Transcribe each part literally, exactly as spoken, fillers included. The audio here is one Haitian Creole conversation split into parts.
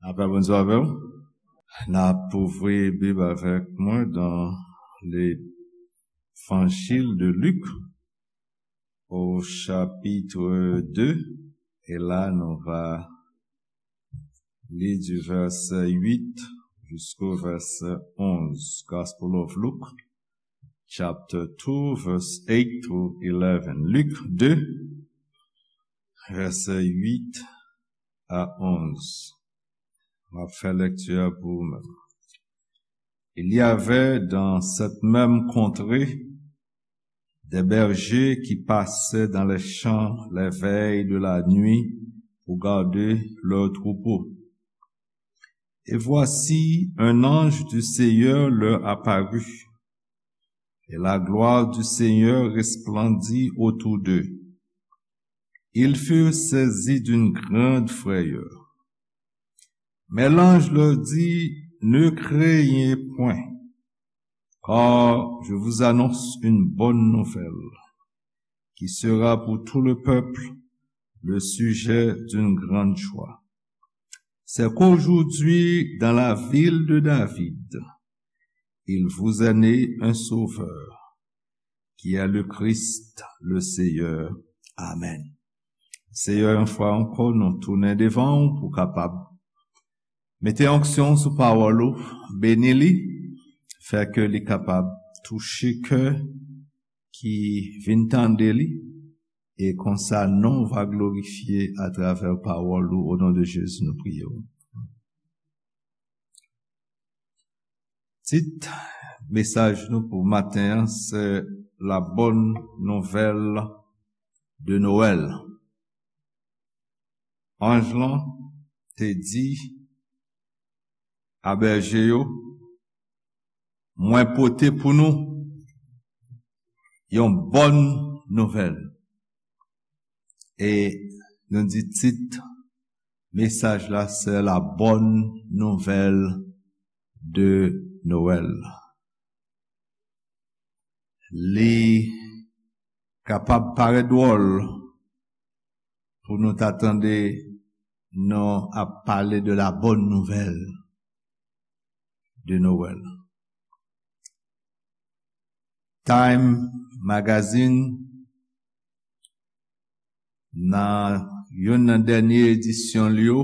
Lapè Bondye avè w. N ap ouvri Bib avèk mwen dans l'Évangile de Luc, au chapitre deux, e la nou va li du verset huit jusqu'au verset onze. Gospel of Luke, chapter two, verse eight through eleven. Luc deux, verset huit à onze. M ap fè lèkti a pou ou menm. Il y avait dans cette même contrée des bergers qui passaient dans les champs les veilles de la nuit pour garder leurs troupeaux. Et voici, un ange du Seigneur leur apparut, et la gloire du Seigneur resplendit autour d'eux. Ils furent saisis d'une grande frayeur. Mais l'ange leur dit, ne craignez point, car je vous annonce une bonne nouvelle qui sera pour tout le peuple le sujet d'une grande joie. C'est qu'aujourd'hui, dans la ville de David, il vous est né un sauveur, qui est le Christ, le Seigneur. Amen. Seyè, yon fwa ankò, nou tounen devan w pou kapab mete onksyon sou pawòl ou, beni li, fè ke li kapab touche kè ki vin tande li, e konsa non w va glorifye atravè pawòl ou, o non de Jezi nou priye w. Tit mesaj nou pou maten an se La bonne nouvelle de Noël. Anj lan te di a bèje yo, mwen pote pou nou yon bòn nouvèl. E nou di tit mesaj la se La bonne nouvelle de Noël. Li kapab parèt dwòl pou nou ta tande nou ap pale de la bonne nouvelle de Noël. Time Magazine, nan youn nan dènye edisyon li yo,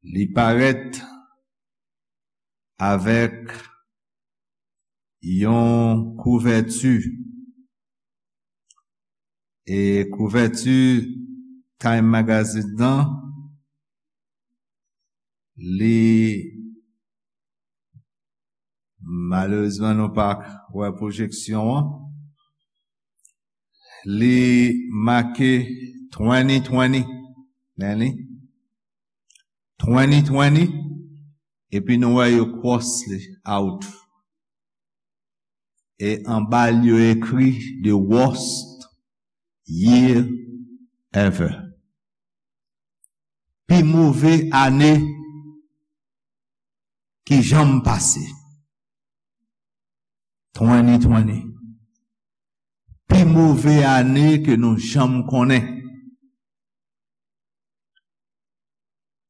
li parèt avèk yon kouvèti. E kouvèti Time Magazine nan, li, malerezman, nou pa wè pwojeksyon an. Li make twenty twenty, men li, twenty twenty, epi nou wè yo cross li out. E anba l yo ekri the worst year ever. Pi move ane ki janm pase. Twenty twenty. Pi move ane ke nou janm konnen.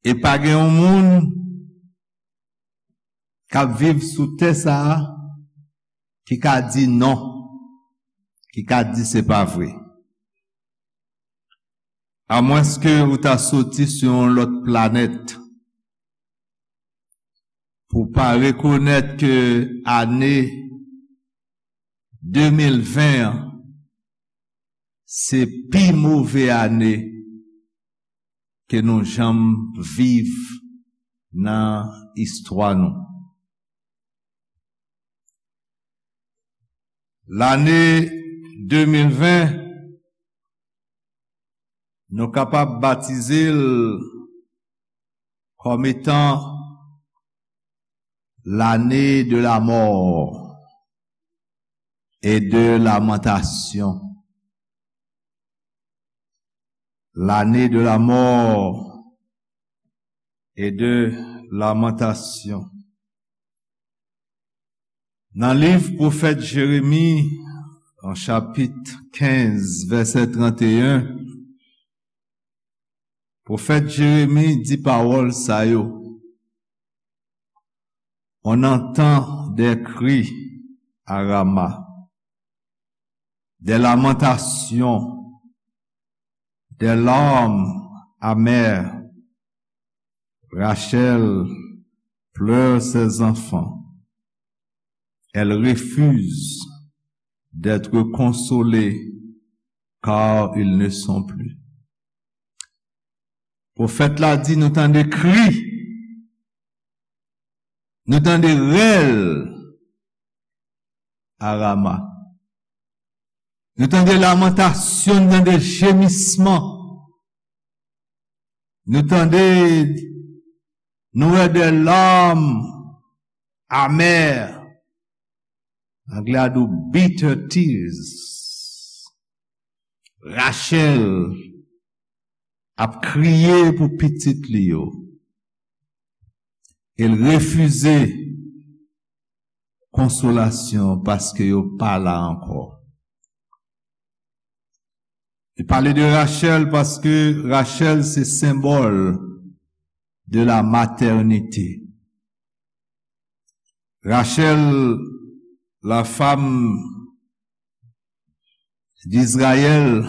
E pa gen yon moun k ap viv sou tè sa a ki ka di non, ki ka di se pa vre. Amwenske ou ta soti sou yon lòt planèt pou pa rekonèt ke ane de mil ven an se pi move ane ke nou janm viv nan istwa nou. Lane de mil ven, nou kapab batize l kòm etan lane de la mò e de lamantasyon. Lane de la mò e de lamantasyon. Nan liv pwofèt Jeremi, an chapit kenz, vèsè trannteyen, Pwofèt Jeremi di pawòl sa yo: On entend des cris à Rama, des lamentations, des larmes amères. Rachel pleure ses enfants. Elle refuse d'être consolée car ils ne sont plus. Pwofèt la di nou tande kri, nou tande rèl a Rama. Nou tande lamantasyon, nou tande jemisman. Nou tande, nou wè de larmes amères. Anglè a di w bitter tears. Rachel ap kriye pou pitit li yo. E l refize konsolasyon paske yo pa la ankò. Li pale de Rachel paske Rachel se senbòl de la maternité. Rachel, la femme d'Israël,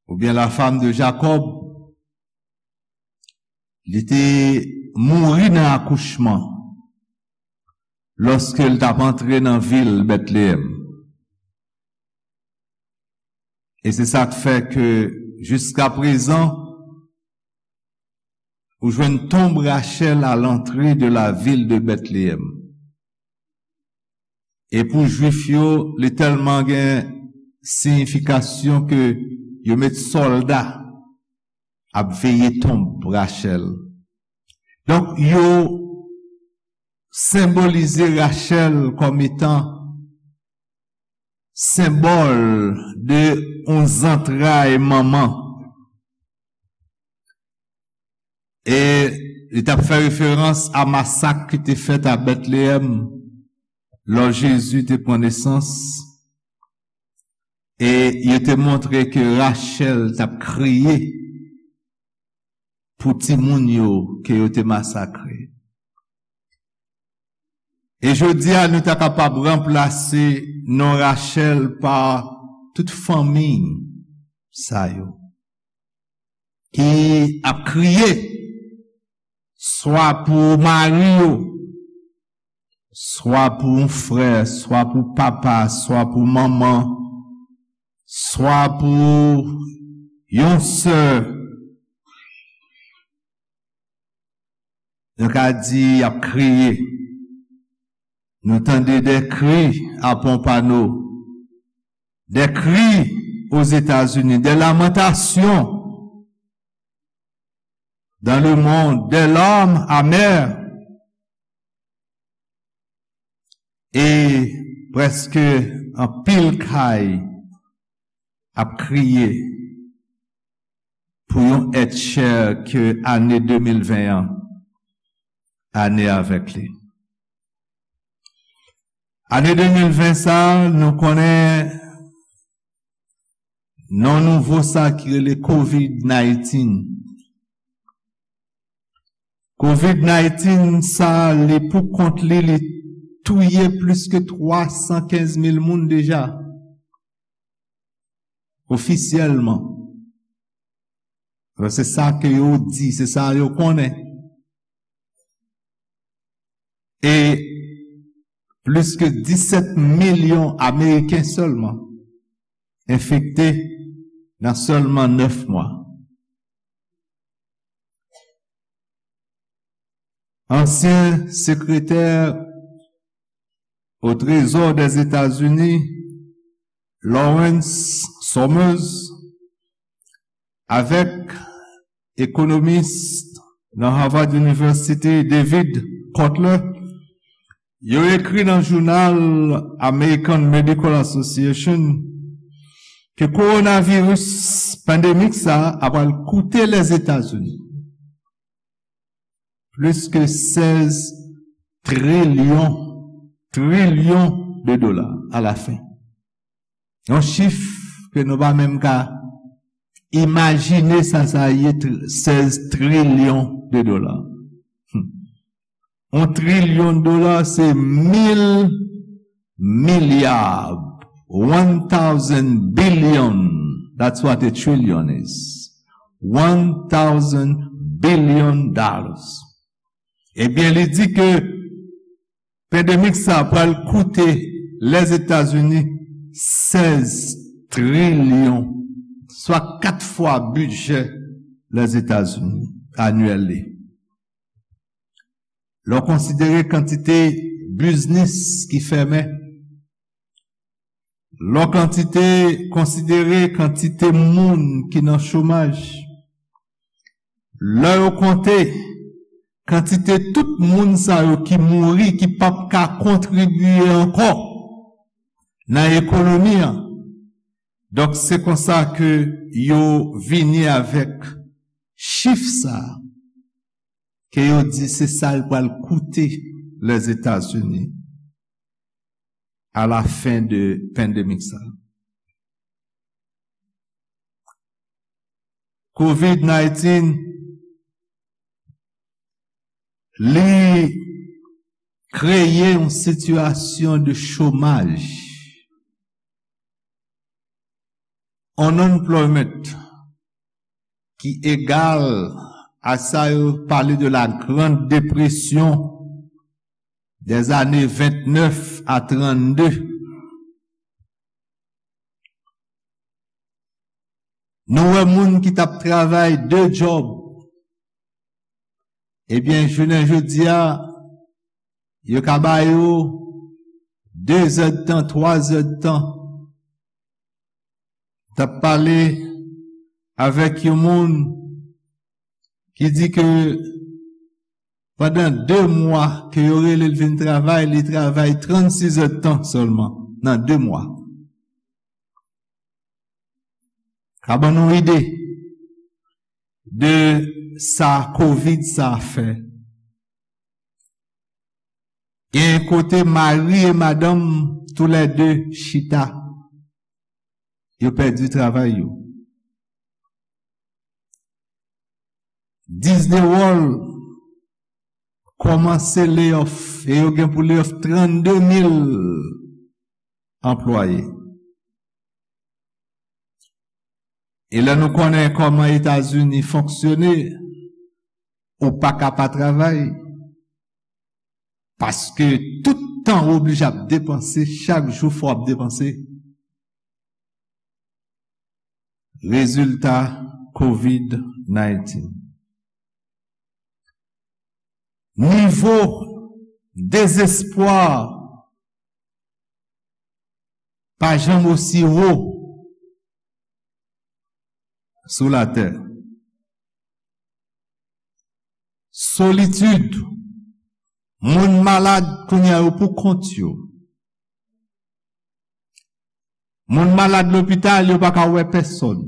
oubyen la femme de Jacob, li te mouri nan akouchman lòske l t ap antre nan vil Bètleyèm. E se sa k fè ke jiska prezan, ou jwenn tonb Rachel à l'entrée de la ville de Bethléem. E pou Jwif yo, li tèlman gen siyifikasyon ke yo met sòlda ap veye tonb Rachel. Donk, yo senbolize Rachel kòm etan senbòl de yon zantray manman. E li t ap fè referans a masak ki te fèt a Bètleyèm lò Jezi te pran nesans. E yo te montre ke Rachel t ap kriye pou timoun yo ke yo te masakre. E jodi a, nou ta kapab ranplase non Rachel pa tout fanmi sa yo ki ap kriye, swa pou mari yo, swa pou yon frè, swa pou papa, swa pou manman, swa pou yon sè. Nou ka di y ap kriye. Nou tande des cris à Pompano, des cris aux États-Unis, des lamentations dans le monde, des larmes amères. E prèske anpil kay ap kriye pou yon èt chè ke ane de mil ven an, ane avèk li. Ane de mil ven sa, nou konnen non nouvo sa ki rele covid nineteen. Covid nineteen sa, li pou kont li, li touye plis ke twa san kenz mil moun deja. Ofisyèlman. Bon, se sa ke yo di, se sa yo konnen. E plis ke disèt milyon Ameriken sèlman enfekte nan sèlman nèf mwa. Ansyen sekretè o Trezò Dèzetazini, Lawrence Summers, avèk ekonomis nan Harvard University, David Kotler, yo ekri nan jounal American Medical Association ke kowonaviris pandemik sa a pral koute Lèzetazini plis ke sèz trilyon, trilyon de dola a la fen. Yon chif ke nou pa menm ka Imajine sa sa ye, tr- sèz trilyon de dola. Hmm. Yon trilyon dola se mil milya. One thousand billion. That's what a trillion is. One thousand billion dollars. Ebyen, li di ke pandemik sa pral koute Lèzetazini sèz trilyon, swa kat fwa bidjè Lèzetazini anyèl li. Lè w konsidere kantite biznis ki fèmen, lè w kantite, konsidere kantite moun ki nan chomaj, lè yo konte kantite tout moun sa yo ki mouri, ki p ap ka kontribye ankò nan ekonomi an. Donk, se konsa ke yo vini avèk chif sa a, ke yo di se sa l pral koute Lèzetazini a la fen de pandemik sa. Covid nineteen, li kreye yon sitiyasyon de chomaj, unemployment, ki egal a sa yo pale de la Grande Dépression des années vingt-neuf à trente-deux. Nou wè moun ki t ap travay de djòb, ebyen, jounen jodi a, yo ka ba yo de zèdtan, twa zèdtan. T ap pale avèk yon moun ki di ke pandan de mwa ke yo rele l vin travay, li travay trannsis èdtan sèlman nan de mwa. Ka ban nou ide de sa Covid sa fè. Gen kote mari e madanm toulède chita, yo pèdi travay yo. Disney World kòmanse layoff e yo gen pou layoff trannde mil anplwaye. E lè nou konnen kòman Etazini fonksyone, ou pa ka pa travay. Paske tout tan ou oblije ap depanse, chak jou fò w ap depanse. Rezilta Covid nineteen. Nivo dezespwa pa janm osi wo sou latè. Solitid, moun malad kounye a yo pou kont yo. Moun malad lopital, yo pa ka wè pèsòn.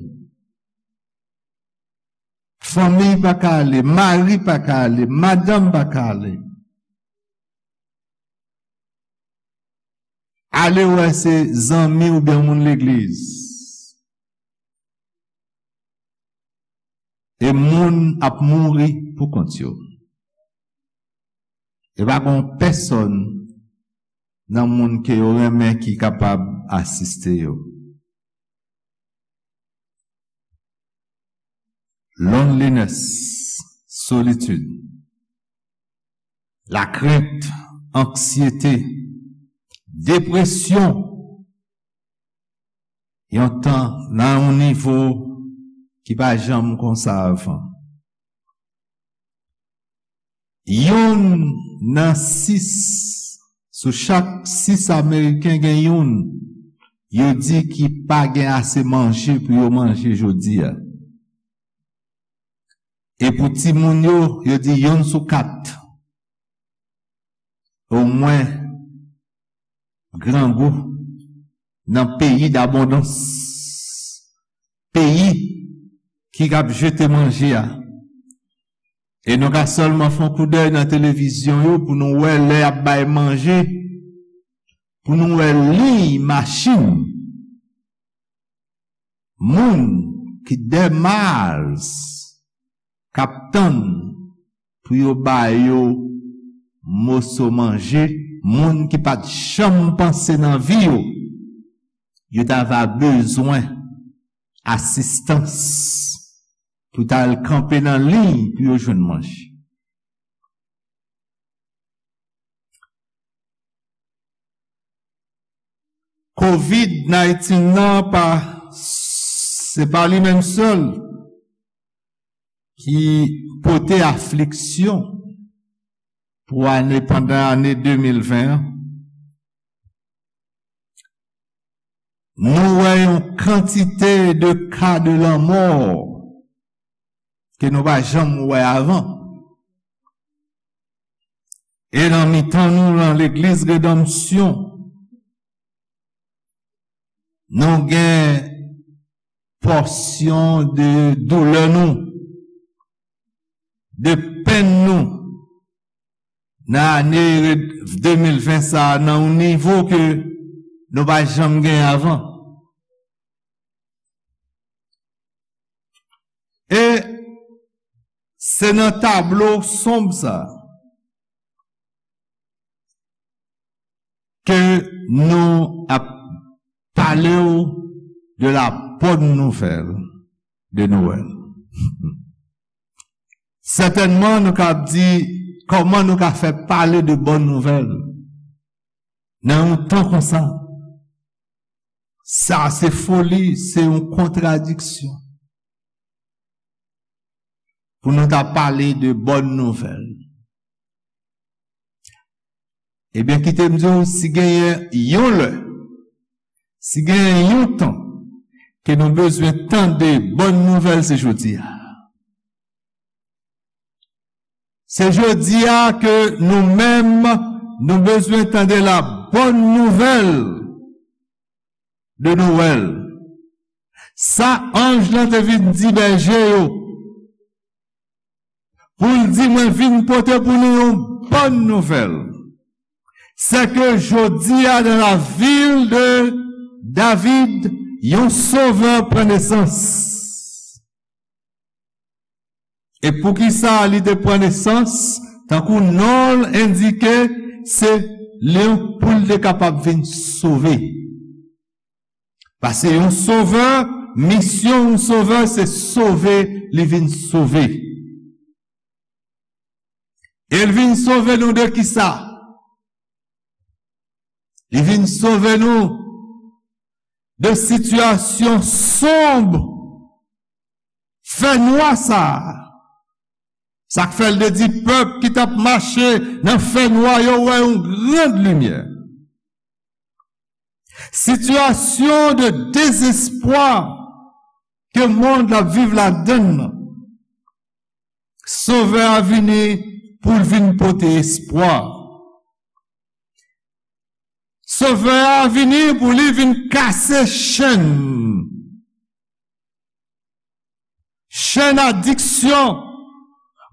Fanmi pa ka ale, mari pa ka ale, madanm pa ka ale. Ale wè se zanmi oubyen moun legliz. E moun ap mouri pou kont yo. E pa gen pèsòn nan moun ke yo renmen ki kapab asiste yo. Loneliness, solitid, lakrent, anksyete, depresyon, yon tan nan yon nivo ki pa janm konsa avan. Youn nan sis, sou chak sis Ameriken gen youn, yo di ki pa gen ase manje pou yo manje jodi a. E pou timoun yo, yo di youn sou kat. Omwen, grangou nan peyi dabondans, peyi ki ap jete manje a. E nou ka sèlman fè yon koudèy nan televizyon yo pou nou wè lè y ap bay manje, pou nou wè liy machin moun ki dè Mars k ap tann pou yo ba yo moso manje, moun ki pa t janm panse nan vi yo, yo ta va bezwen asistans pou ta al kanpe nan liy pou yo jwenn manje. Covid nineteen nan pa, se pa li menm sèl ki pote afliksyon pou ane, pandan ane de mil ven an. Nou wè yon kantite de ka de lanmò ke nou pa janm wè avan. E nan mitan nou, nan Legliz Redanmsyon, nou gen pòsyon de doulè nou, de penn nou, nan ane de mil ven sa a, nan yon nivo ke nou pa janm gen avan. E se nan tablo sonb sa a ke nou ap pale w de la bonne nouvelle de Noël. Sètènman, nou ka di, kòman nou ka fè pale de bonne nouvelle nan yon tan konsa? Sa se foli, se yon kontradiksyon. Pou nou ta pale de bonne nouvelle. Ebyen, kite m di w, si genyen yon lè, si genyen yon tan ke nou bezwen tande bonne nouvelle, se jodi a. Se jodi a ke nou menm, nou bezwen tande la bonne nouvelle de Noël. Sa anj lan te vin di bèje yo, pou l di, mwen vin pote pou nou yon bonne nouvelle. C'est que jodi a, dans la ville de David, yon sovè pran nesans. E poukisa li te pran nesans? Tankou non l endike, se li pou l te kapab vin sove. Paske yon sovè, misyon yon sovè, se sove, li vin sove. E l vin sove nou de kisa? Li vin sove nou de sitiyasyon sonb, fènwa sa a. Sa k fè l te di pèp ki t ap mache nan fènwa yo wè yon gran limyè. Sitiyasyon de dezespwa ke mond la ap viv ladann nan, Sovè a vini pou l vin pote espwa. Sovè a vini pou li vin kase chenn. Chenn adiksyon,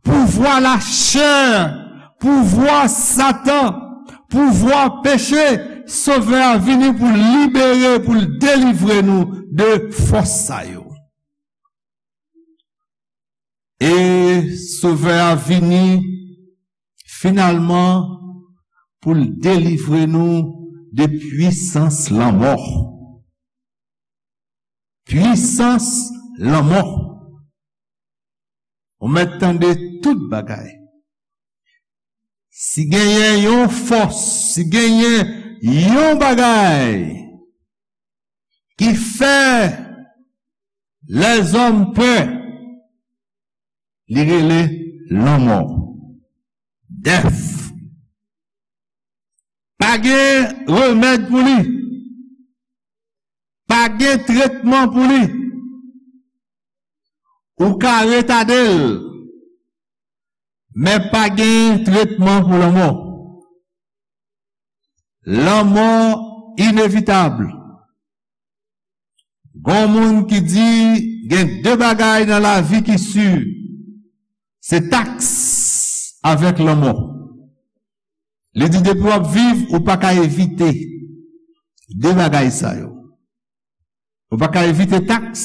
pouvwa lachè, pouvwa Satan, pouvwa peche, Sovè a vini pou l libere, pou l delivre nou de fòs sa yo. E Sovè a vini finalman pou l delivre nou de pwisans lanmò. Pwisans lanmò. Ou mèt tande tout bagay. Si genyen yon fòs, si genyen yon bagay ki fè lèzòm pè, li rele lanmò. Dèf. Pa gen remèd pou li. Pa gen tretman pou li. Ou ka retade l, men pa gen tretman pou lanmò. Lanmò inevitab. Gon moun ki di gen de bagay nan lavi ki si, se taks avèk lanmò. Li di depi w ap viv, ou pa ka evite de bagay sa yo. Ou pa ka evite taks,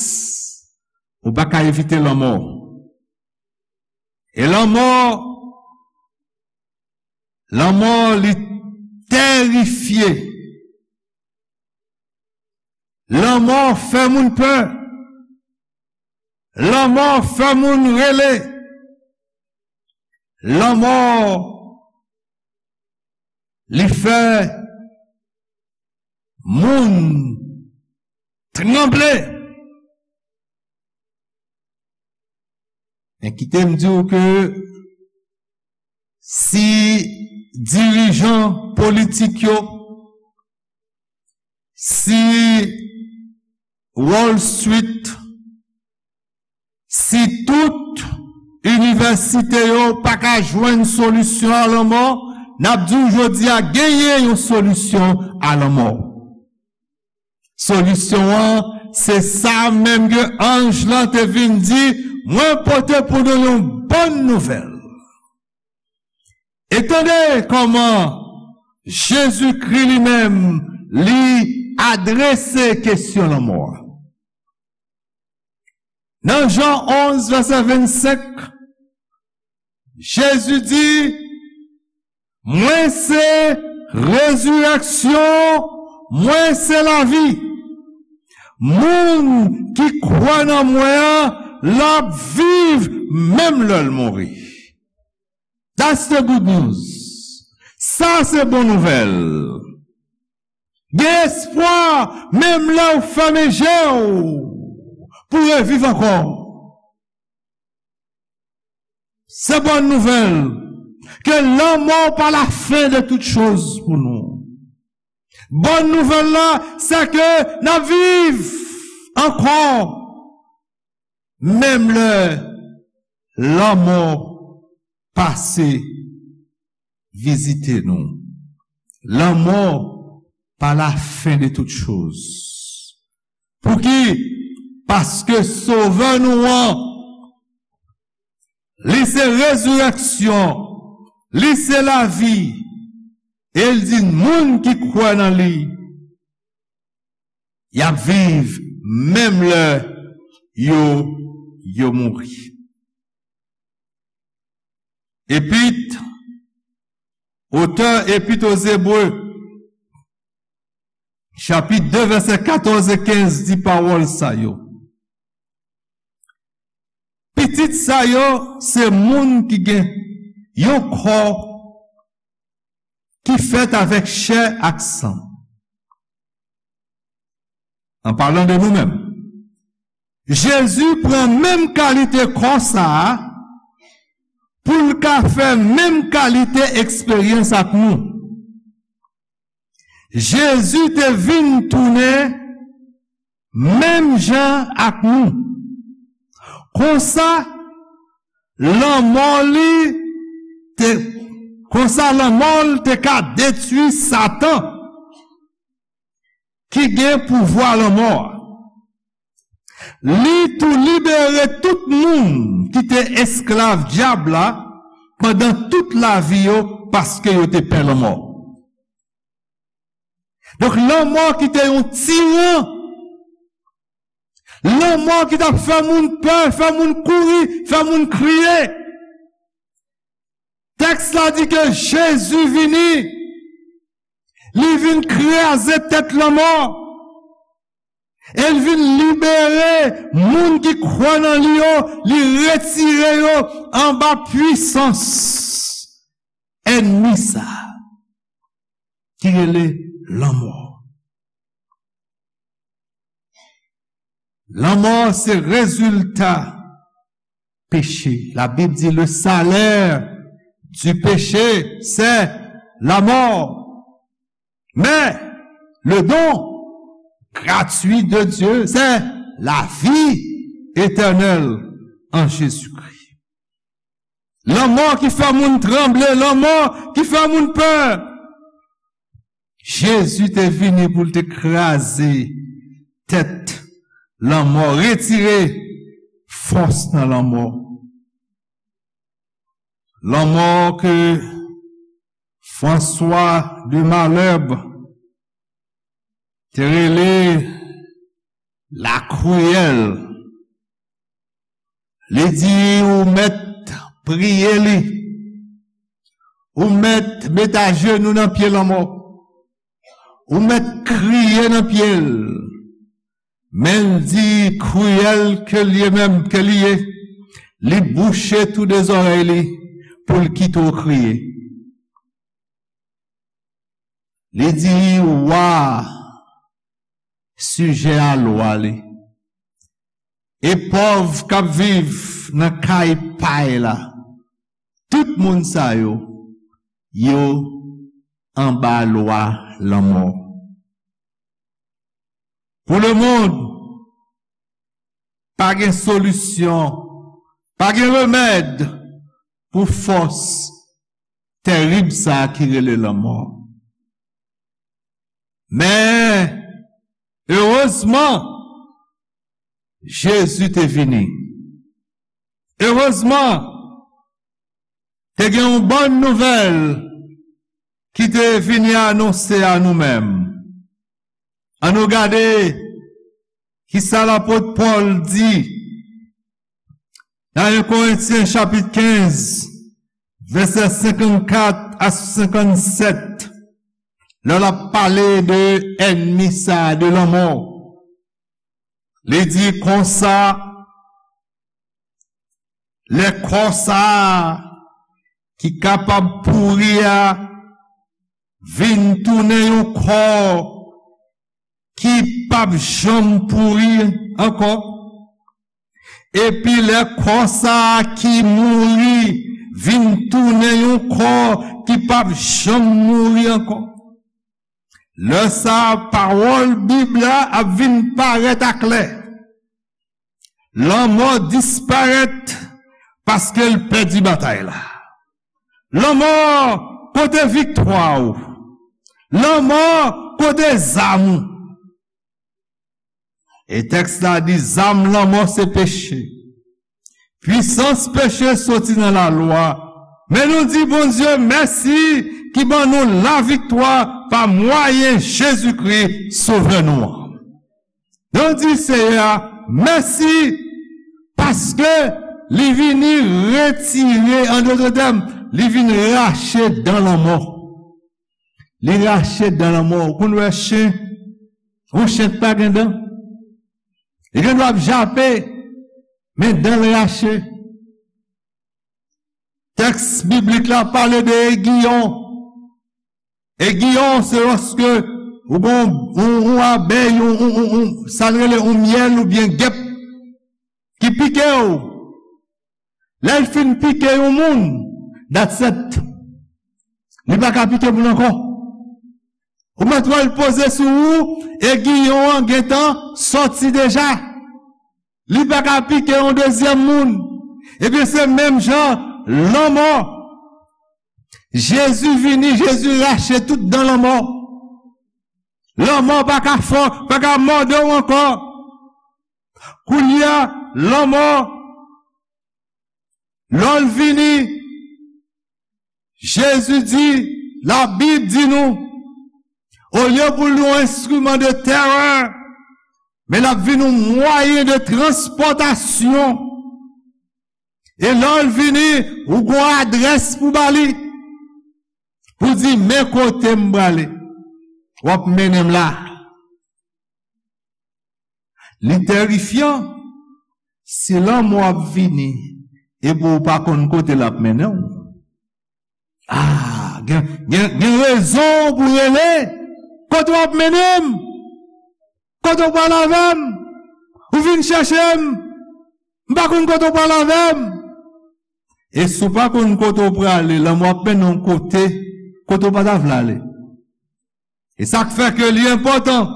Ou pa ka evite lanmò. E lanmò, lanmò li terifye. Lanmò fè moun pè. Lanmò fè moun rele. Lanmò, li fè moun tranble. Men kite m di w ke si dirijan politik yo, si Wall Street, si tout inivèsite yo pa ka jwenn solisyon a lanmò, n ap di w jodi a genyen yon solisyon a lanmò. Solisyon an, se sa menm ke anj lan te vin di, mwen pote pou nou yon bòn nouvèl. E tande kòman Jezikri li menm, li adrese kesyon lanmò a. Nan Jan onz, vèsè vennsenk, Jezi di, mwen se rezirèksyon, mwen se lavi. Moun ki kwè nan mwen an, l ap viv menm lè l mouri. That's the good news. Sa se bon nouvèl. Gen espwa, menm lè w fèmen je w, pou reviv ankò. Se bòn nouvèl ke lanmò pa la fen de tout choz pou nou. Bòn nouvèl la, se ke n ap viv ankò, menm lè lanmò pase vizite nou. Lanmò pa la fen de tout choz. Pouki? Paske Sovè nou an, li se rezirèksyon, li se lavi, e l di moun ki kwè nan li, y ap viv menm lè yo, yo mouri. Epit, otè Epit aux Hébreux, chapit de, vèsè katòz e kenz di pawòl sa yo. Pitit sa yo se moun ki gen yon kò ki fèt avèk chè ak san. An palan de nou menm, Jezi pran menm kalite kò sa a pou l ka fè menm kalite eksperyans ak nou. Jezi te vin tounen menm jan ak nou. Konsa, lanmò li te, konsa lanmò l te ka detwi Satan ki gen pouvwa lanmò a. Li tou libere tout moun ki te esklav dyab la pandan tout lavi yo, paske yo te pè lanmò. Donk, lanmò ki te yon tiran, lanmò ki t ap fè moun pè, fè moun kouri, fè moun kriye. Tèks la di ke Jezi vini, li vin kraze tèt lanmò, e l vin libere moun ki kwè nan li yo, li retire yo anba pwisans ènmi sa a ki rele lanmò. Lanmò se rezilta peche. La Bible dit le salaire du péché, c'est la mort. Mais le don gratuit de Dieu, c'est la vie éternelle en Jésus-Christ. Lanmò ki fè moun tranble, lanmò ki fè moun pè. Jezi te vini pou l te kraze tèt lanmò, retire fòs nan lanmò. Lanmò ke François de Malherbe te rele la kriyèl. Li di, ou mèt priye li. Ou mèt met ajenou nan pye lanmò. Ou mèt kriye nan pye l. Men l di, kriyèl ke li ye menm, ke li ye, li bouche tou de zòrèy li pou l kite w kriye. Li di, wa sijè a lwa li. E pòv k ap viv nan kay pay la, tout moun sa yo, yo anba lwa lanmò. Pou lemonn, pa gen solisyon, pa gen remèd pou fòs tèrib sa a ki rele lanmò. Men, erezman, Jezi te vini. Erezman, te gen yon bòn nouvèl ki te vini anonse a nou menm. Ann nou gade kisa lapot Pòl di nan en Korentyen chapit kenz, vèsè senkannkat a senkannsèt, lè l ap pale de ènmi sa a, de lanmò. Li di konsa, lè kò sa a ki kapab pouri a vin tounen yon kò ki p ap janm pouri ankò. Epi lè kò sa a ki mouri vin tounen yon kò ki p ap janm mouri ankò. Lè sa a, pawòl Bib la ap vin parèt aklè. Lanmò disparèt paske l pèdi batay la. Lanmò, kote viktwa w? Lanmò, kote zam ou? E tèks la di, zam lanmò se peche. Pwisans peche soti nan lalwa. Men nou di Bondye mèsi ki ban nou laviktwa pa mwayen Jezikri, Sovè nou an. Nou di Seyè a mèsi paske li vini retire, an dòt tèm, li vin rache dan lanmò. Li rache dan lanmò. Ou konn wè chen, yon chen k pa gen dan, li gen dwa ap jape, men dan l rache. Tèks biblik la pale de egiyon. Egiyon, se lòske ou gon yon, yon abèy, yon, yon, yon, yon, sa n rele yon myèl oubyen gèp ki pike w. Lè l fin pike yon moun, that's it. Li pa ka pike moun ankò. Ou mèt wè l poze sou ou, egiyon an gentan sòti deja. Li pa ka pike yon dezyèm moun. Ebyen, se menm jan, lanmò. Jezi vini, Jezi rache tout dan lanmò. Lanmò pa ka fè w, pa ka mòde w ankò. Kounye a, lanmò, lè l vini, Jezi di, Labib di nou, olye pou l yon enstriman de terè, men l ap vin yon mwayen de transpòtasyon. E lè l vini, ou gon adrès pou ba li, pou di, men kote m prale, w ap mennen m la. Li terifyan. Si lanmò ap vini, epi w pa konn kote l ap mennen w, ah, gen, gen, gen rezon pou rele. Kote w ap mennen m? Kote w pral avè m? Ou vin chèche m? M pa konn kote w pral avè m. E si w pa konn kote w prale, lanmò ap mennen w kote, kote w pa ta vle ale. E sa k fè ke li enpòtan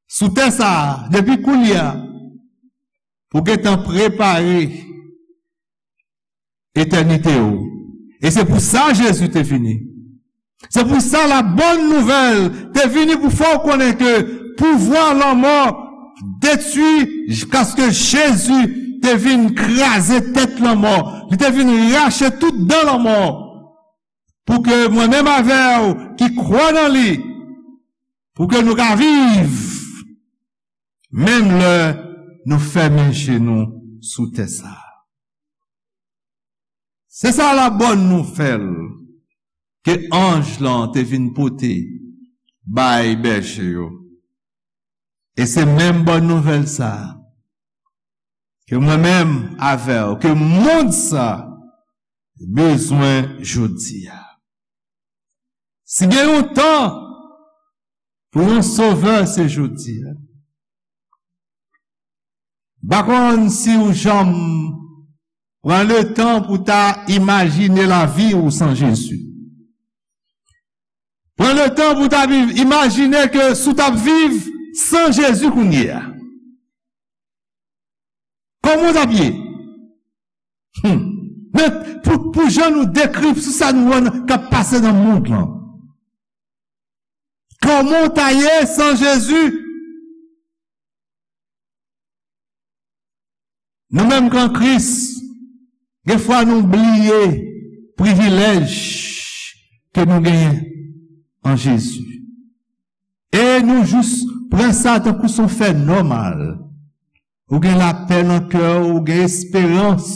sou tè sa a, depi kounye a, pou gentan prepare etènite w. E se pou sa Jezi te vini. Se pou sa la bòn nouvèl te vini pou fè w konnen ke pouvwa lanmò detwi, jiskaske Jezi te vin kraze tèt lanmò. Li te vin rache tout dan lanmò. Pou ke mwen menm avè w ki kwè nan li, pou ke nou ka viv, menm lè nou fèmen je nou sou tè sa a. Se sa la bòn nouvèl ke anj lan te vin pote bay bèje yo. E se menm bòn nouvèl sa a ke mwen menm avè w, ke mond sa bezwen jodi a. Si gen yon tan pou yon sovè, se jodi a. M pa konn si w janm pran letan pou ta imajine lavi w san Jezi. Pran letan pou ta viv, imajine ke si w t ap viv san Jezi kounye a. Kòman w t ap ye? Hmm. Men pou, pou jan nou dekri, sou sa nou wè k ap pase nan mond lan. Kòman w ta ye san Jezi? Nou menm k an Kris, gen fwa nou bliye privilèj ke nou genyen an Jezi. E nou jis pran sa tankou se yon fè nòmal. Ou gen lapè nan kè w, ou gen esperans.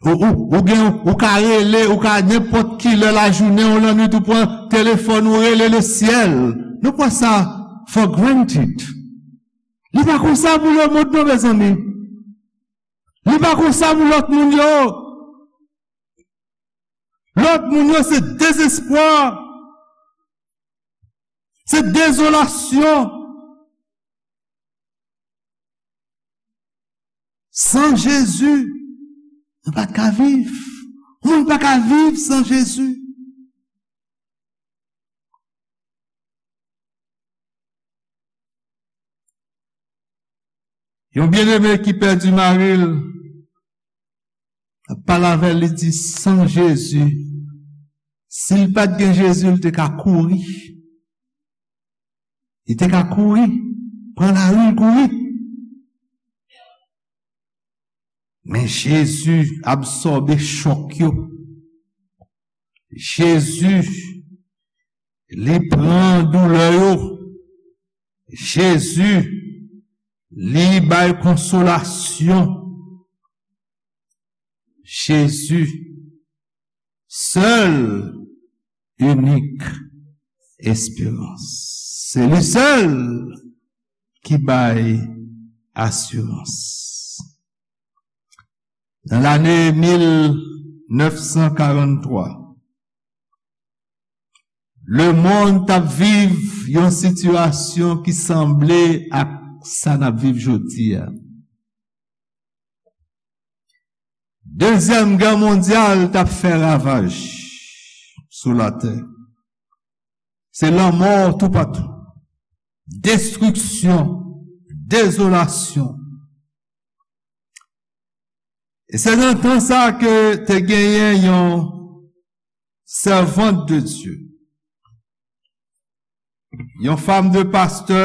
Ou, ou, ou gen, ou ka rele, ou ka nenpòt ki lè lajounen ou lannwit, ou pran telefòn, ou rele le syèl. Nou pran sa for granted. Li pa konsa pou lemonn non, mezanmi. Li pa konsa pou lòt moun yo. Lòt moun yo se dezespwa, se dezolasyon. San Jezi, nou pa t ka viv. Moun pa ka viv san Jezi. Yon byeneme ki pèdi mari l, ap pale avè l, li di, san Jezi, si l pa t gen Jezi, l te ka kouri. Li te ka kouri, pran lari, l kouri. Men Jezi absòbe chòk yo. Jezi, li pran doulè yo. Jezi, li bay konsolasyon. Jezi, sèl, inik esperans. Se li sèl ki bay asirans. Nan lane mil nèf san karannntwa, lemonn t ap viv yon sitiyasyon ki sanble ak sa n ap viv jodi a. Dezyèm gè mondyal t ap fè ravaj sou latè. Se lanmò toupatou, destriksyon, dezolasyon. E se nan tan sa ke te genyen yon sèvant de Dye, yon fanm de pastè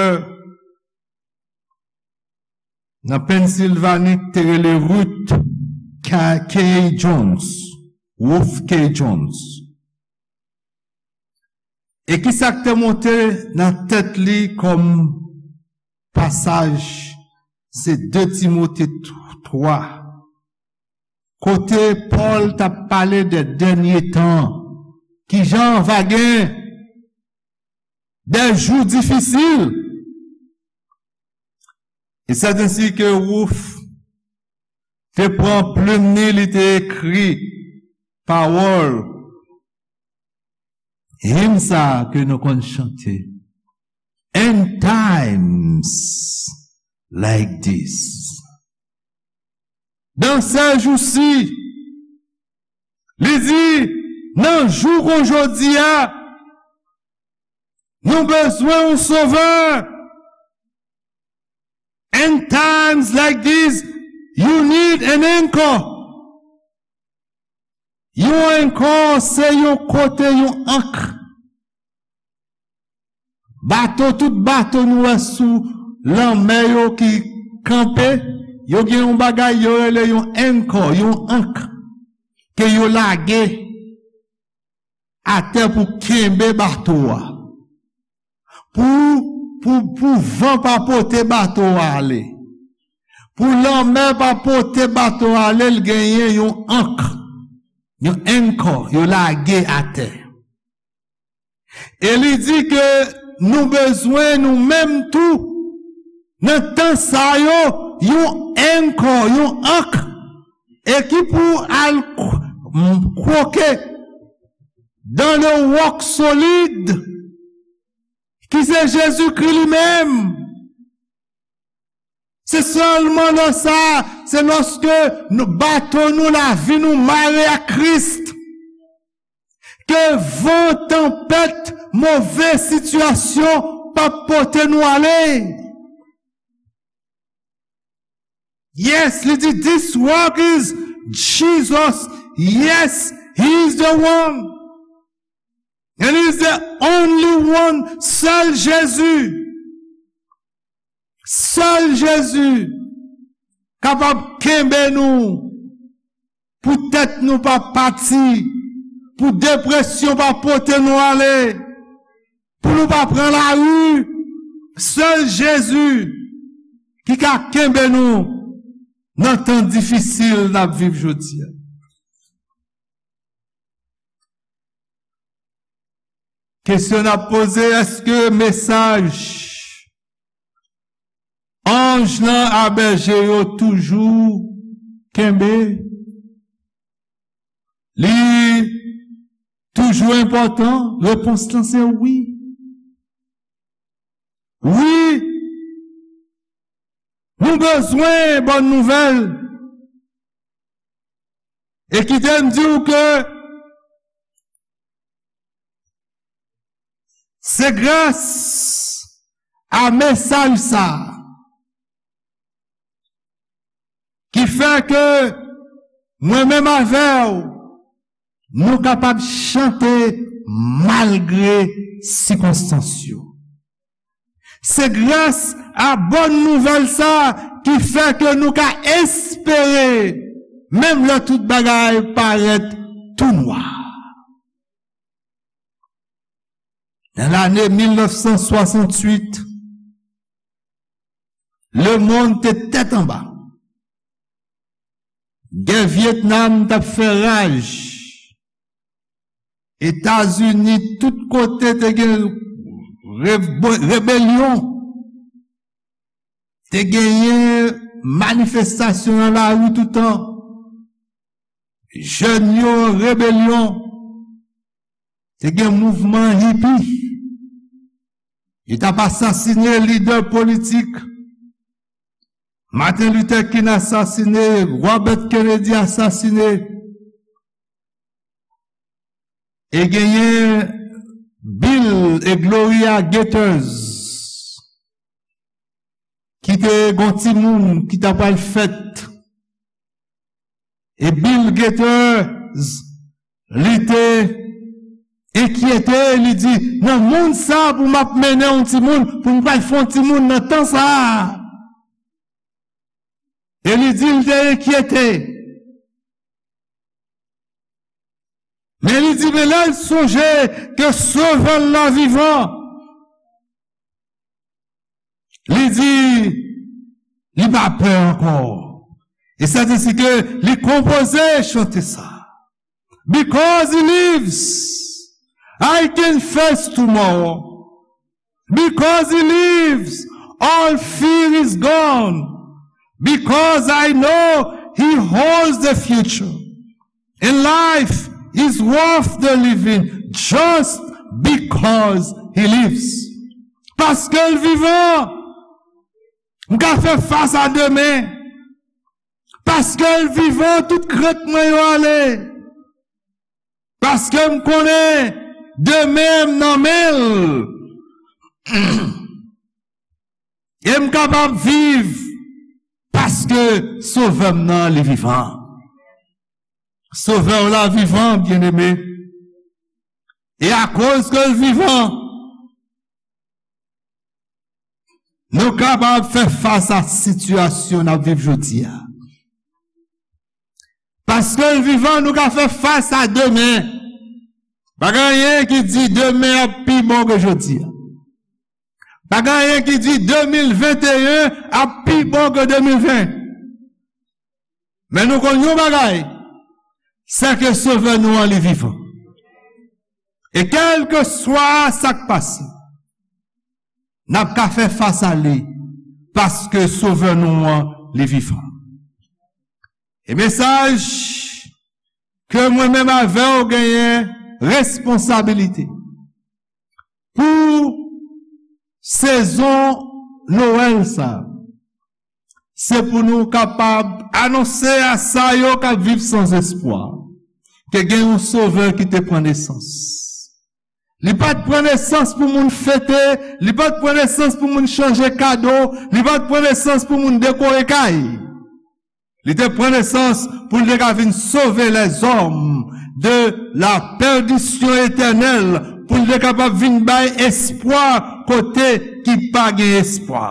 nan Pennsilvani ki te rele Ruth K. K. Jones, Ruth K. Jones. E ki sa k te monte nan tèt li kòm pasaj, se de Timote twa, kote Pòl t ap pale de dènye tan, kijan va gen de jou difisil. E sèt ensi ke Ruth te pran plim ni, li te ekri pawòl, him sa ke nou konn chante, "In times like this." Dans ces jours-ci, li di, nan jou kon jodi a, nou bezwen yon sovè. In times like this, you need an anchor. Yon anchor se yon kote, yon ank. Bato, tout bato nou wè sou lanmè yo ki kanpe, yo gen yon bagay yo rele yon anchor, yon ank ke yo lage atè pou kenbe bato a. Pou pou, pou van pa pote bato a ale, pou lanmè pa pote bato a ale, l genyen yon ank, yon anchor, yo lage atè. E li di ke nou bezwen, nou menm tou, nan tan sa yo, yon anchor, yon ank, e ki pou al k-, m-, kwoke dans le roc solide, ki se Jezikri li menm. Se sèlman lè sa, se lòske nou, bato nou, lavi nou mare ak Kris, ke van, tanpèt, move sitiyasyon p ap pote nou ale. Yes, li di, "This rock is Jesus." Yes, he is the one. And he is the only one. Sèl Jezi. Sèl Jezi kapab kenbe nou pou tèt nou pa pati, pou depresyon pa pote nou ale, pou nou pa pran lari. Sèl Jezi ki ka kenbe nou nan tan difisil n ap viv jodi a. Kesyon n ap poze, èske mesaj anj lan a bèje yo toujou kenbe? Li toujou enpòtan? Repons lan se wi. Wi, nou bezwen bòn nouvèl. E kite m di w ke se gras a mesaj sa a ki fè ke mwen menm avè w, nou kapab chante malgre sikonstans yo. Se gras a bòn nouvèl sa a ki fè ke nou ka espere, menm lè tout bagay parèt tou nwa. Nan lane mil nèf san swasanntuit, lemonn te tèt anba. Gè Vyetnam t ap fè raj. Etazini, tout kote te gen rebe-, rebelyon. Te genyen manifestasyon nan lari toutan. Jèn yo an rebelyon. Te gen mouvman hipi. Yo t ap asasinen lidè politik. Martin Luther King asasine, Robert Kennedy asasine. E genyen Bill e Gloria Gaither ki te gon timoun ki ta pral fèt. E Bill Gaither, li te enkyete, li di, "Nan mond sa pou m ap mennen yon timoun, pou m pral fè yon timoun nan tan sa a?" E li di l te enkyete. Men li di, men lè l sonje ke Sovè l la vivan, li di, li pa pè ankò. E sètensèten ke li konpoze chante sa. Because he lives, I can face tomorrow. Because he lives, all fear is gone. Because I know he holds the future. And life is worth the living just because he lives. Paske l vivan, m ka fè fas a demen. Paske l vivan, tout krent mwen yo ale. Paske m konnen demen m nan men l. E m kapab viv paske Sovè m nan, li vivan. Sovè w la vivan, byeneme. E akoz ke l vivan, nou kapab fè fas a sitiyasyon n ap viv jodi a. Paske l vivan, nou ka fè fas a demen. Pa gen anyen ki di demen ap pi bon ke jodi a. Pa gen anyen ki di de mil venteyen ap pi bon ke de mil ven. Men nou konn yon bagay, se ke Sovè nou an, li vivan. E kèlkeswa sa k pase, n ap ka fè fas a li, paske Sovè nou an, li vivan. E mesaj ke mwen menm avè w genyen responsabilite pou sezon Nwèl sa a, se pou nou kapab anonse a sa yo k ap viv san espwa, ke gen yon Sovè ki te pran nesans. Li pa t pran nesans pou moun fete, li pa t pran nesans pou moun chanje kado, li pa t pran nesans pou moun dekore kay. Li te pran nesans pou l te ka vin sove lèzòm de la pèdisyon etènèl, pou l te kapab vin bay espwa kote ki pa gen espwa.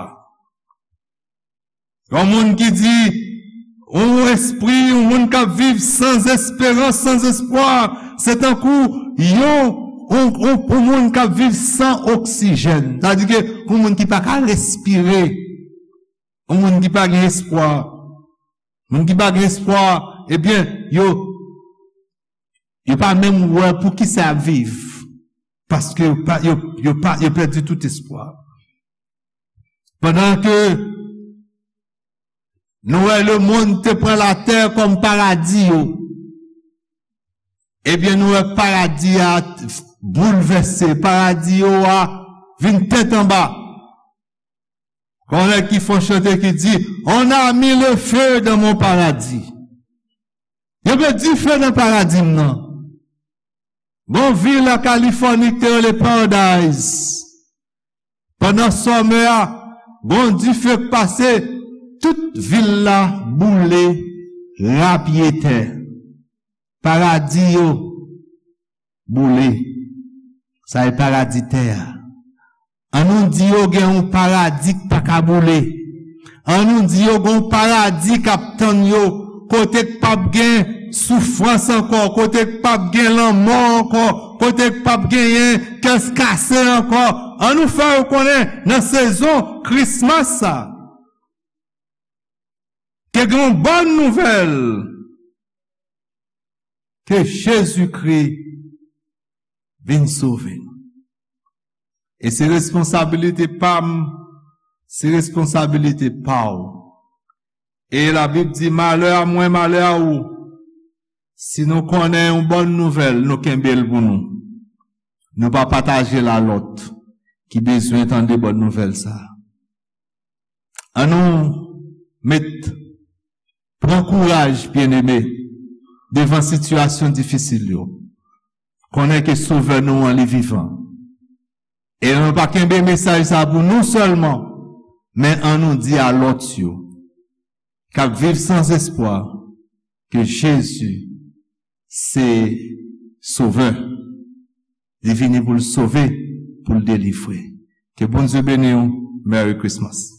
Yon moun ki di, yon espri, yon moun k ap viv san esperans, san espwa, se tankou yon, yon, yon, yon moun k ap viv san oksijèn. Sa di ke yon moun ki pa ka respire, yon moun ki pa gen espwa. Moun ki pa gen espwa, ebyen, yo, yo pa menm wè pou ki sa y ap viv. Paske yo pa, yo, yo pa, yo pèdi tout espwa. Pandan ke nou wè lemonn te pran latè kòm paradi yo, ebyen, nou wè paradi a boulvèse, paradi yo a vin tèt anba. Gon nèg ki fè yon chante ki di, "On a mis le feu dans mon paradis." Yo met dife nan paradi m nan. Gon vil an Kalifòni ki te rele Paradise. Pandan sòmè a, gon dife k pase, tout vil la boule, rapyetè. Paradi yo boule. Sa e paradi tè a. An nou di yo gen yon paradi k pa ka boule. An nou di yo gen yon paradi k ap tann yo, kote k p ap gen soufrans ankò, kote k p ap gen lanmò ankò, kote k p ap genyen kè kase ankò. An nou fè yo konnen nan sezon Krismas sa, ke gen yon bòn nouvèl, ke Jezikri vin sove nou. E se responsabilite pa m, se responsabilite pa w. E Labib di, "Malè a mwen, malè a ou, si nou konnen yon bòn nouvèl, nou kenbe l pou nou. Nou pa pataje l a lòt ki bezwen tande bòn nouvèl sa a." An nou met, pran kouraj, byeneme, devan sitiyasyon difisil yo. Konnen ke Sovè nou an, li vivan. E nou pa kenbe mesaj sa pou nou sèlman, men an nou di a lòt yo, k ap viv san espwa, ke Jezi se Sovè. Li vini pou l sove, pou l delivre. Ke Bondye beni w. Merry Christmas.